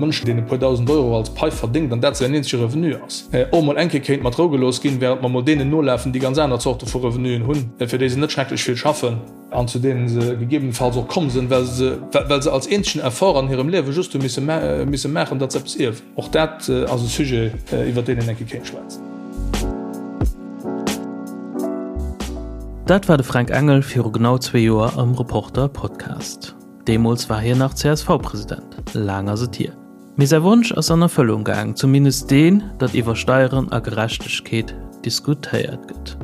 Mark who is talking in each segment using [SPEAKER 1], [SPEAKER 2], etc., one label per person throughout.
[SPEAKER 1] Mënsch, deen e puer 1.000 Euro als Pai verdéngt an dat säin eenzege Revenu ass, och mol eng Kéier kéint mat Rou gelooss ginn, während mer mol deenen nolafen, déi ganz aner Zorte vu Revenuen hunn, fir déi se net schrecklech vill schaffen an zu deenen se gegebenenfalls och komm sinn, well se, well se als eenzegen Effort an hirem Liewe just hu misse misse maachen, datt se eppes ierwen. Och dat ass e Sujet, iwwer deen een eng Kéier kéint schwätzen.
[SPEAKER 2] Dat war de Fränk Engel viru genau zwee Joer am Reporter Podcast. Deemools war hien nach CSV-President. Laang ass et hier. Mee säi Wonsch ass an Erfëllung gaang, zumindest deen, datt iwwer Steieren a Gerechtegkeet diskutéiert gëtt.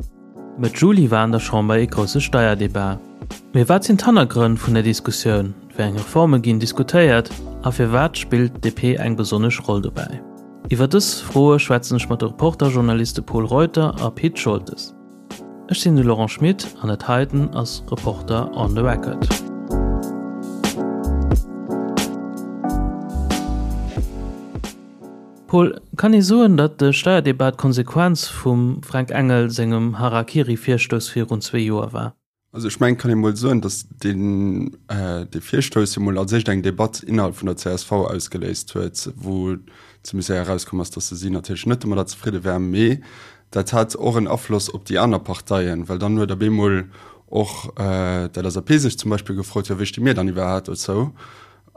[SPEAKER 2] Mëtt Juli war an der Chamber ee grousse Steierdebat. Mee wat sinn d'Hannergrënn vun der Diskussioun? Wéi eng Reforme ginn diskutéiert a firwat spillt d'DP eng besonnesch Roll dobäi? Iwwer dës Froe schwätzen ech mat de Reporter-Journaliste Pol Reuter a Pit Scholtes. Ech sinn de Laurent Schmit an dat heiten ass Reporter on the Record. Paul, kann ee soen, datt de Steierdebat d'Konsequenz vum Fränk Engel sengem Harakiri-Virstouss virun zwee Joer war?
[SPEAKER 3] Also ech mengen, et kann ee mol soen, datt deen dee Virstouss jo mol als éischt eng Debatt innerhalb vun der csv ausgeléist huet, wou zimmlech séier erauskomm ass, datt se si natierlech net domadder zefridde war. Mee dat hat och en Afloss op déi aner Parteien, well dann huet op eemol och d'LSAP sech zum Beispill gefrot, jo wéi sti mir dann iwwerhaapt dozou?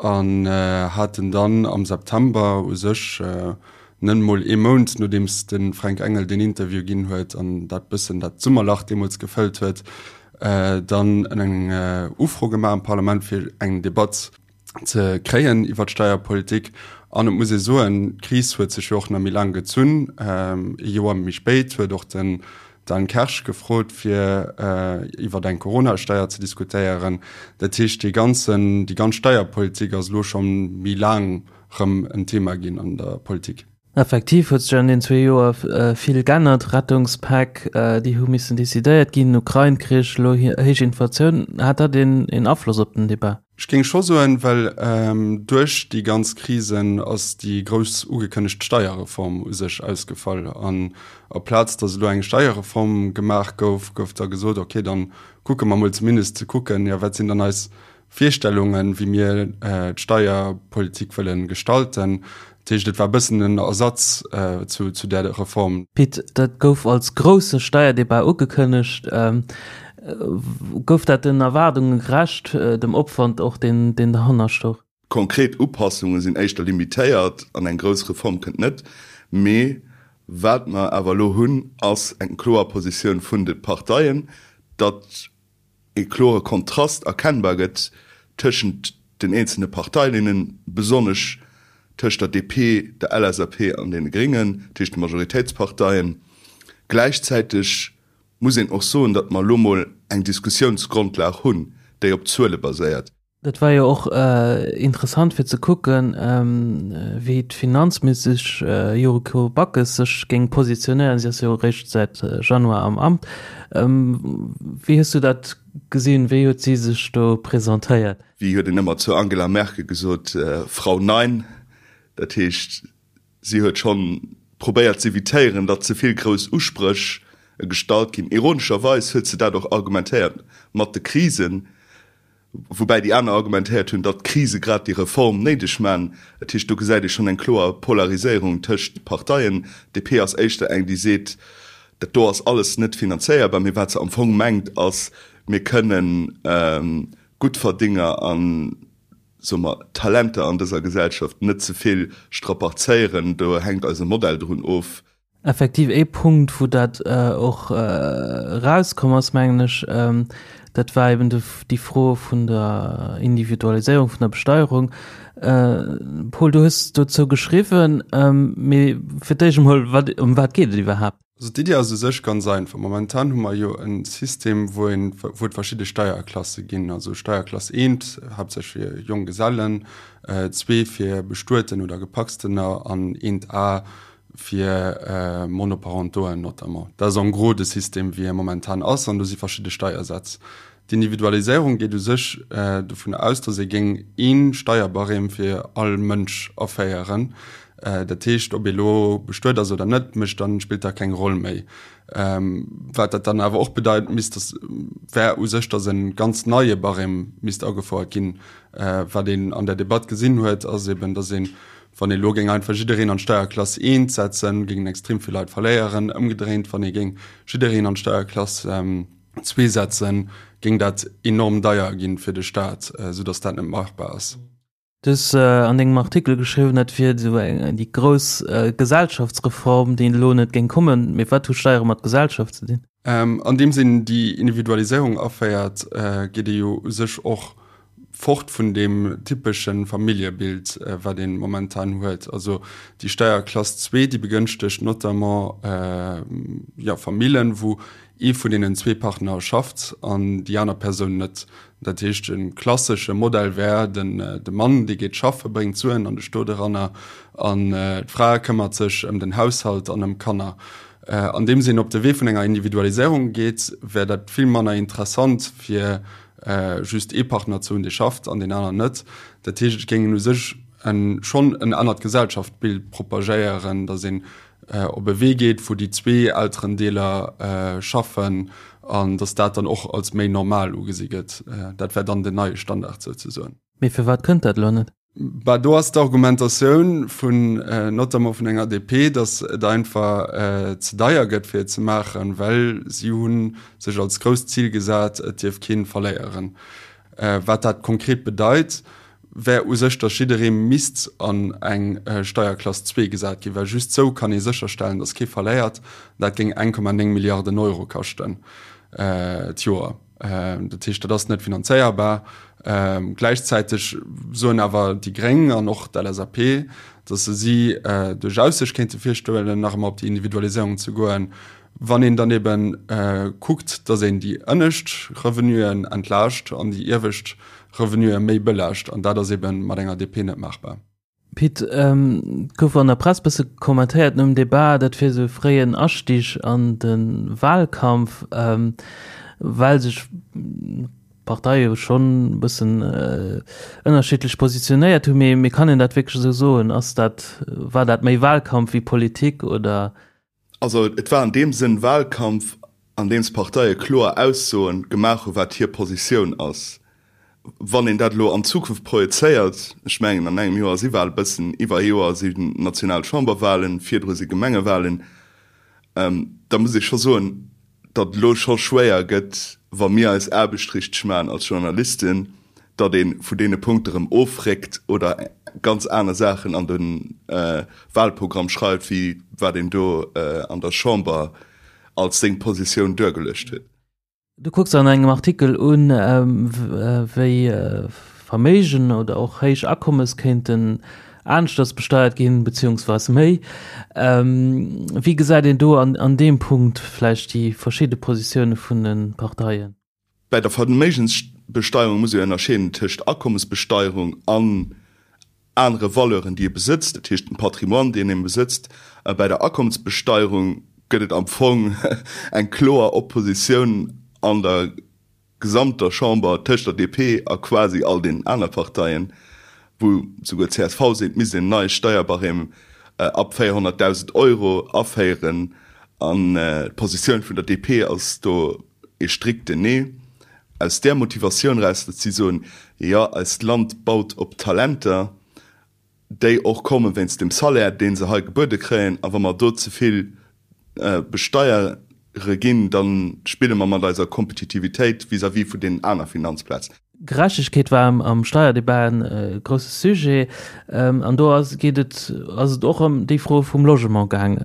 [SPEAKER 3] An haten dann am September u sech, net emol ee Mount nodeems de Fränk Engel deen Interview ginn huet an dat bëssen dat Summerlach deemools gefëllt huet, dann eng Ufro gemaach am Parlament, fir eng Debatt ze kréien iwwer d'Steierpolitik. An et muss ee soen, d'Kris huet sech jo och nach méi laang gezunn. Ee Joer méi spéit huet och den Dan Kersch gefrot fir iwwer eng Corona-Steier ze diskutéieren. Dat heescht dee ganzen, déi ganz Steierpolitik ass elo scho méi laang rëm en Thema ginn an der Politik.
[SPEAKER 2] Effektiv huet sech an den zwee Joer vill g'ännert, Rettungspäck, déi hu missen decidéiert ginn, Ukrain-Krich, elo héich Inflatioun. Hat dat een Afloss op den Debat?
[SPEAKER 3] Ech géing scho soen, well duerch déi ganz Krisen ass déi grouss ugekënnegt Steierreform u sech ausgefall. An aplaz datt elo eng Steierreform gemaach gouf, gouf da gesot, okay, da kucke mer mol zumindest ze kucken, jo wat sinn dann eis Virstellungen, wéi mir d'Steierpolitik wëlle gestalten. Dat heescht, et war e bëssen en Ersatz zu där Reform.
[SPEAKER 2] Pit, dat gouf als grousse Steierdebat ugekënnegt. Gouf dat den Erwaardunge gerecht, dem Opwand och, deen derhanner stoch?
[SPEAKER 4] Konkret Upassunge sinn éischter limitéiert an eng grouss Reform kënnt net. Mee wat mer awer elo hunn, ass eng kloer Positioun vun de Parteien, datt ee klore Kontrast erkennbar gëtt tëschent den eenzelne Parteilinnen, besonnesch tëscht der DP, der LSAP an deene Gréngen, dat heescht de Majoritéitsparteien. Gläichzäiteg muss een och soen, datt mer elo mol eng Diskussiounsgrondlag hunn, déi op Zuele baséiert.
[SPEAKER 2] Dat war jo och interessant fir ze kucken, wéi d'Finanzministesch Yuriko Backes sech géing positionéieren. Si ass jo eréischt säit Januar am Amt. Wéi hues du dat gesinn? Wéi huet si sech do presentéiert?
[SPEAKER 4] Wéi huet een ëmmer zur Angela Merkel gesot, Frau Nein. Dat heescht, si huet schonn probéiert z'evitéieren, datt ze vill grouss Uspréch gestallt ginn. Ironescherweis huet se dat och argumentéiert mat de Krisen. Woubäi déi aner argumentéiert hunn, datt d'Krise grad déi Reform néideg man. Dat heescht, do gesäit ee schonn eng kloer Polariséierung tëscht de Parteien. DP ass éischter eng, déi seet, dat do ass alles net finanzéierbar. Mee wat se am Fong mengt, ass, mir kënnen Guttverdénger a soe mer Talenter an dëser Gesellschaft net ze vill strapazéieren. Do hänkt eise Modell drun of.
[SPEAKER 2] Effektiv ee Punkt, wou dat och erauskomm ass, mengen ech, dat war eben déi Fro vun der Individualiséierung vun der Besteierung. Paul, du hues dozou geschriwwen, mee fir d'éischt emol, wat, ëm wat geet et iwwerhaapt?
[SPEAKER 3] Also d'Iddi ass u sech ganz einfach. Momentan hu mer jo e System, wou een, wou et verschidde Steierklasse ginn, also Steierklass eent haaptsächlech fir Jonggesellen, zwee fir Bestueten oder Gepacstener an eent A fir Monoparentoen notamment. Dat ass en gros de System, wéi e momentan ass, an do si verschidde Steiersätz. D'Individualiséierung geet u sech dovun aus, datt ee géing ee Steierbarème fir all Mënsch aféieren. Dat heescht, ob ee lo bestuet ass oder net, mécht dann, spillt da keng Roll méi. Wat dat dann awer och bedeit misst, datt wär u sech, datt e ganz neie Barème misst agefouert ginn. Wat een an der Debatt gesinn huet, ass eben, datt ee. Wann ee elo géing einfach jiddereen an d'Steierklass eent setzen, géingen extrem vill Leit verléieren. Ëmgedréint, wann ee géing jiddereen an d'Steierklass zwee setzen, géing dat enorm deier ginn fir de Staat, soudatt dat net machbar ass.
[SPEAKER 2] Du hues an dengem Artikel geschriwwen, dat wier esou eng déi grouss Gesellschaftsreform, déi elo net géing kommen. Mee wat hu Steiere mat Gesellschaft ze dinn?
[SPEAKER 3] Andeems een déi Individualiséierung aféiert, geet ee jo u sech och fort vun deem typesche Familljebild, wat ee momentan huet. Also déi Steierklass zwee, déi begënschtegt notamment, jo, Famillen, wou ee vun deenen zwee Partner schafft an déi aner Persoun net. Dat heescht, e klassesche Modell wär, den de Mann, dee geet schaffe, bréngt d'Suen an de Stot eranner an d'Fra këmmert sech ëm den Haushalt an ëm d'Kanner. Andeems een op de Wee vun enger Individualiséierung geet, wär dat vill manner interessant fir just ee Partner ze hunn, dee schafft an deen aneren net. Dat heescht, et géing een u sech schonn en anert Gesellschaftsbild propagéieren, datt een op e Wee geet, wou déi zwee Elterendeeler schaffen an datt dat dann och als méi normal ugesi gëtt. Dat wär dann den neie Standard souzesoen.
[SPEAKER 2] Mee firwat kënnt dat elo net?
[SPEAKER 3] Bah, do ass d'Argumentatioun vun, notamment vun enger DP, datt et einfach ze deier gëtt fir et ze maachen, well si hu sech als grousst Zil gesat, et dierf kee verléieren. Wat dat konkret bedeit, wär u sech, datt jidderee misst an eng Steierklass zwee gesat ginn, well just sou kann ee sécherstellen, datt kee verléiert. Dat géing 1,9 Milliarden Euro kaschten d'Joer. Dat heescht, dat ass net finanzéierbar. Gläichzäiteg soen awer déi Gréng an och d'LSAP, datt se si duerchaus sech kéinte virstellen, nach ëmmer op déi Individualiséierung ze goen, wann een dann ebe kuckt, datt een déi ënnescht Revenuen entlaascht an déi iewescht Revenue méi belaascht. An dat ass ebe mat enger DP net maachbar.
[SPEAKER 2] Pit, et gouf an der Press bësse kommentéiert nom Debat, dat wier esou e fréien Astig an de Wahlkampf, well sech d'Parteie jo schonn e bëssen ënnerschiddlech positionéiert hunn. Mee kann een dat wierklech esou soen? Ass dat, war dat méi Wahlkampf wéi Politik oder?
[SPEAKER 4] Also et war an deem Sënn Wahlkampf, an deem d'Parteie kloer Aussoen gemaach hu wat hir Positioun ass. Wann een dat elo an d'Zukunft projezéiert, ech mengen an engem Joer si Wahle, bëssen iwwer ee Joer si national Chamberwahlen, virdru si Gemengewahlen, da muss ee scho soen, datt et elo scho schwéier gëtt, wa mir eis Aarbecht richteg maachen als Journalisten, datt ee vun deene Punkte erëm ofréckt oder ganz aner Saachen an de Wahlprogramm schreift, wéi wat een do an der Chamber als seng Positioun duergeluecht huet.
[SPEAKER 2] Du kucks an engem Artikel un, wéi Verméigen oder och héich Akommes kéinten aneschters besteiert ginn, beziehungsweis méi. Wéi gesäit een do an deem Punkt vläicht déi verschidde Positioune vun de Parteien?
[SPEAKER 4] Bei der Verméigensbesteierung muss ee ënnerscheeden tëscht Akommesbesteierung an anere Valeuren, déi ee besëtzt, dat heescht dem Patrimoine, deen ee besëtzt. Bei der Akommesbesteierung gëtt et am Fong eng kloer Oppositioun an der gesamter Chamber tëscht der DP a quasi all deenen aner Parteien, wou souguer csv seet, et misst een en neie Steierbarème ab 400.000 Euro aféieren. An d'Positioun vun der DP ass do ee strikten Nee. Aus där Motivatioun eraus, datt si soen, jo, eist Land baut op Talenter, déi och komme wéinst dem Salaire, dee se hei gebuede kréien, a wa mer do ze vill besteiere ginn, da spille mer mat eiser Kompetitivitéit vis-à-vis vun deenen aner Finanzplazen.
[SPEAKER 2] Gerechtegkeet war am Steierdebat e grousse Sujet. An do ass, geet et, ass et och ëm déi Fro vum Logement gaang.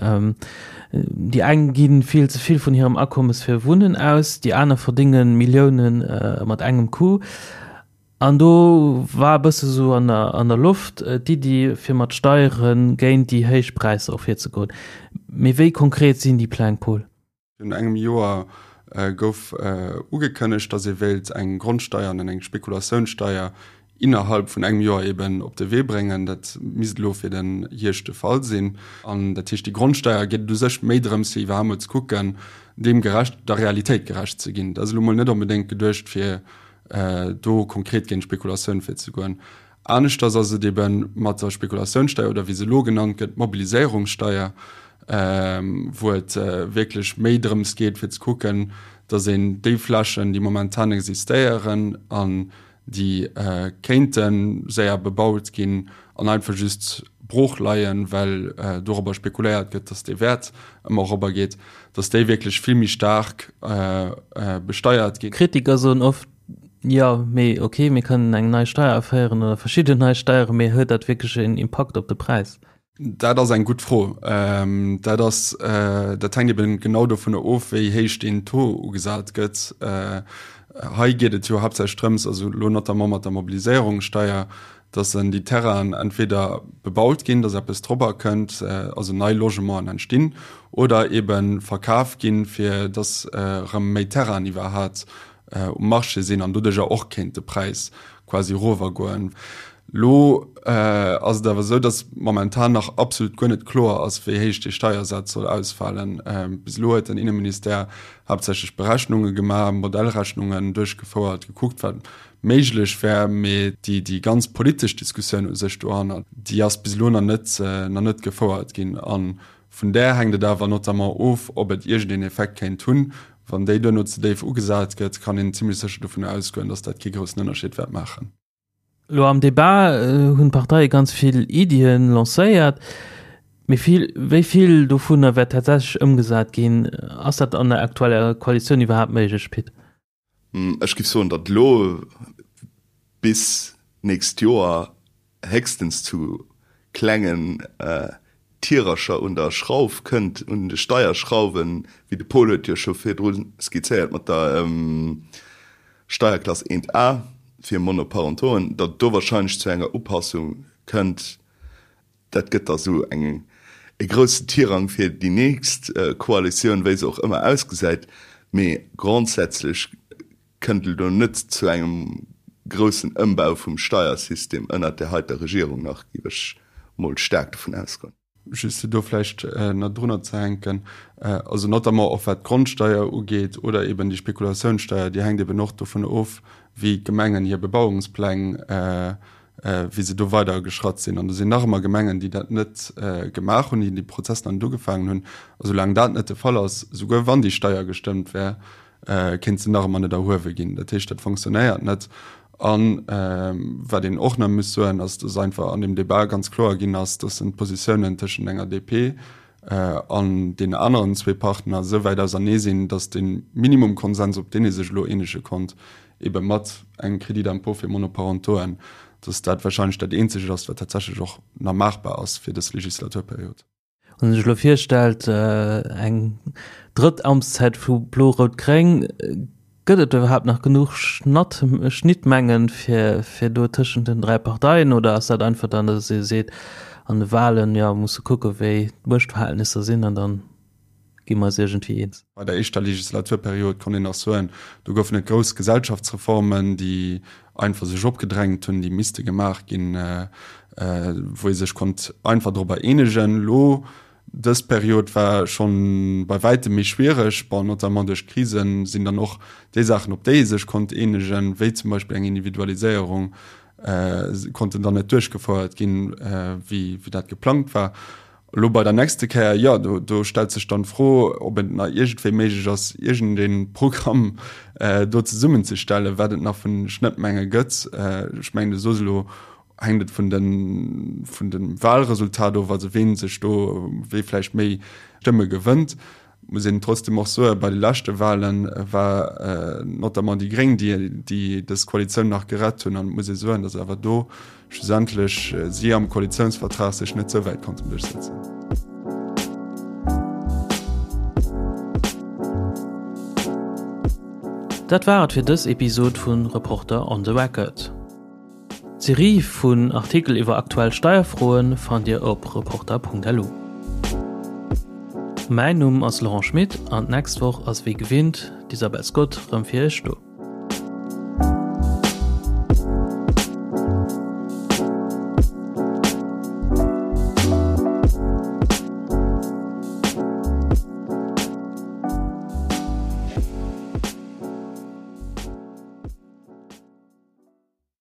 [SPEAKER 2] Déi eng gi vill ze vill vun hirem Akommes fir Wunnen aus, déi aner verdénge Millioune mat engem Coup. An do war e bësse sou an der, an der Loft d'Iddi, fir mat Steiere géint déi héich Präisser och virzegoen. Mee wéi konkret sinn déi Pläng, Paul?
[SPEAKER 3] Virun engem Joer gouf ugekënnegt, datt ee wéilt eng Grondsteier an eng Spekulatiounssteier innerhalb vun engem Joer eben op de Wee bréngen. Dat misst elo fir den Hierscht de Fall sinn. An dat heescht, déi Grondsteier geet et u sech méi drëms, fir iwwerhaapt mol ze kucken, deem gerecht, der Realitéit gerecht ze ginn. Dat ass elo mol net onbedéngt geduecht, fir do konkret géint d'Spekulatioun virzegoen. Aneschters ass et ebe mat der Spekulatiounssteier oder wéi se elo genannt gëtt, d'Mobiliséierungssteier, wou et wierklech méi drëms geet fir ze kucken, datt een déi Flächen, déi momentan existéieren an déi kéinte séier bebaut ginn an einfach just. brooch leien, well dorobber spekuléiert gëtt, datt dee Wäert ëmmer erobber geet, datt déi wierklech vill méi staark besteiert ginn.
[SPEAKER 2] Kritiker soen oft, jo, mee ok, mir kënnen eng nei Steier aféieren oder verschidden nei Steieren, mee huet dat wierklech een Impakt op de Präis?
[SPEAKER 3] Dat ass eng gutt Fro. Dat ass, dat hänkt eben genau dovunner of, wéi héich deen Taux ugesat gëtt. Hei geet et jo haaptsächlech drëms, also elo notamment mat der Mobiliséierungssteier, dass en déi Terrainen entweder bebaut ginn, dass eppes drobber kënnt, also nei Logementen entstinn, oder ebe verkaf ginn, fir dass erëm méi Terrainen iwwerhat um Marché sinn an doduercher och kéint de Präis quasi erovergoen. Elo ass et awer esou, dass momentan nach absolut guer net kloer ass, wéi héich dee Steiersaz soll ausfalen. Bis elo huet den Inneministère haaptsächlech Berechnunge gemaach, Modellrechnungen duerchgefouert, gekuckt, wat méiglech wär, mee déi déi ganz politesch Diskussioun u sech dohannert, déi ass bis elo nach net nach net gefouert ginn. A vun där hänkt et awer notamment of, ob et iergendeen Effekt kéint hunn. Wann déi duerno ze déif ugesat gëtt, kann een zimlech sécher dovun ausgoen, datt dat kee groussen Ënnerscheed wäert maachen.
[SPEAKER 2] Elo am Debat hunn d'Parteie ganz vill Iddien lancéiert, mee vill, wéi vill dovunner wäert tatsächlech ëmgesat ginn? Ass dat an der aktueller Koalitioun iwwerhaapt méiglech, Pit?
[SPEAKER 4] Ech giff soen, datt elo bis nächst Joer héchstens zu klengen Tirercher un der Schrauf kënnt, un de Steierschrauwen, wéi de Paul huet jo scho virdru skizzéiert mat der Steierklass 1 A fir Monoparentoen, datt et do wahrscheinlech zu enger Upassung kënnt. Dat gëtt da sou eng e groussen Tirang fir déi nächst Koalitioun, wéi se och ëmmer ausgesäit. Mee grondsätzlech kënnt et elo net zu engem groussen Ëmbau vum Steiersystem ënnert där heiter Regierung nach, géif ech mol staark dovun ausgoen.
[SPEAKER 3] Just fir do vläicht nach drunner ze hänken, also notamment och wat d'Grondsteier ugeet oder eben déi Spekulatiounssteier, déi hänkt eben och dovun of, wéi d'Gemengen hir Bebauungspläng wéi se do weider geschratt sinn. An do sinn nach ëmmer Gemengen, déi dat net gemaach hunn, déi dee Prozess nach net ugefaangen hunn. A soulaang dat net de Fall ass, souguer wann déi Steier gestëmmt wär, kéint se nach ëmmer net erhuewe ginn. Dat heescht, dat fonctionnéiert net. A wat een och nach muss soen, ass, dass einfach an deem Débat ganz kloer ginn ass, dass en d'Positiounen tëschent enger DP an deenen aneren zwee Partner esou wäit ausernee sinn, dass de Minimumkonsens, op deen ee sech elo eenege konnt, ebe mat engem Crédit d'impôt fir Monoparentoen, dass dat wahrscheinlech dat eenzegt ass, wat tatsächlech och nach maachbar ass fir dës Legislaturperiod.
[SPEAKER 2] Wann ee sech elo virstellt, eng drëtt Amtszäit vu Blo-Rout-Gréng, gëtt et iwwerhaapt nach genuch Schnatt, Schnittmengen fir, fir do tëschent den 3 Parteien oder ass dat einfach dann, dass ee seet, an de Wahlen, jo, musse kucke wéi d'Muechtverhältnisser sinn an dann gi mer eis iergendwéi eens?
[SPEAKER 3] Bei der éischter Legislaturperiod konnt een nach soen, do goufen et grouss Gesellschaftsreformen, déi einfach sech opgedrängt hunn, déi misste gemaach ginn, wou ee sech konnt einfach dorobber eenegen. Elo dës Period war schonn bei wäitem méi schwiereg. Bon, notamment duerch d'Krisen sinn dann och déi Saachen, op déi ee sech konnt eenegen, wéi zum Beispill eng Individualiséierung, konnten dann net duerchgefouert ginn, wéi dat geplangt war. Elo bei der nächste Kéier, jo, do, do stellt sech dann d'Fro, ob et nach iergendwéi méiglech ass, iergendee Programm do zesummenzestellen, wat et nach vun Schnëttmenge gëtt. Ech mengen, du soos elo, hänkt et vun den, vun dem Wahlresultat of, also ween sech do, wee vläicht méi Stëmme gewënnt. Muss een trotzdem och soen, bei de leschte Wahlen war notamment déi Gréng, déi, déi dës Koalitioun nach gerett hunn. An et muss ee soen, datt awer do schlussendlech si am Koalitiounsvertrag sech net sou wäit konnten duerchsetzen.
[SPEAKER 2] Dat war et fir dës Episod vu Reporter on the Record. D'Serie vun Artikel iwwer aktuell Steierfroe fannt Dir op Reporter.lu. Mäin Numm ass Laurent Schmit an d'nächst Woch ass wéi gewinnt d'Isabel Scott rëm fir Iech do.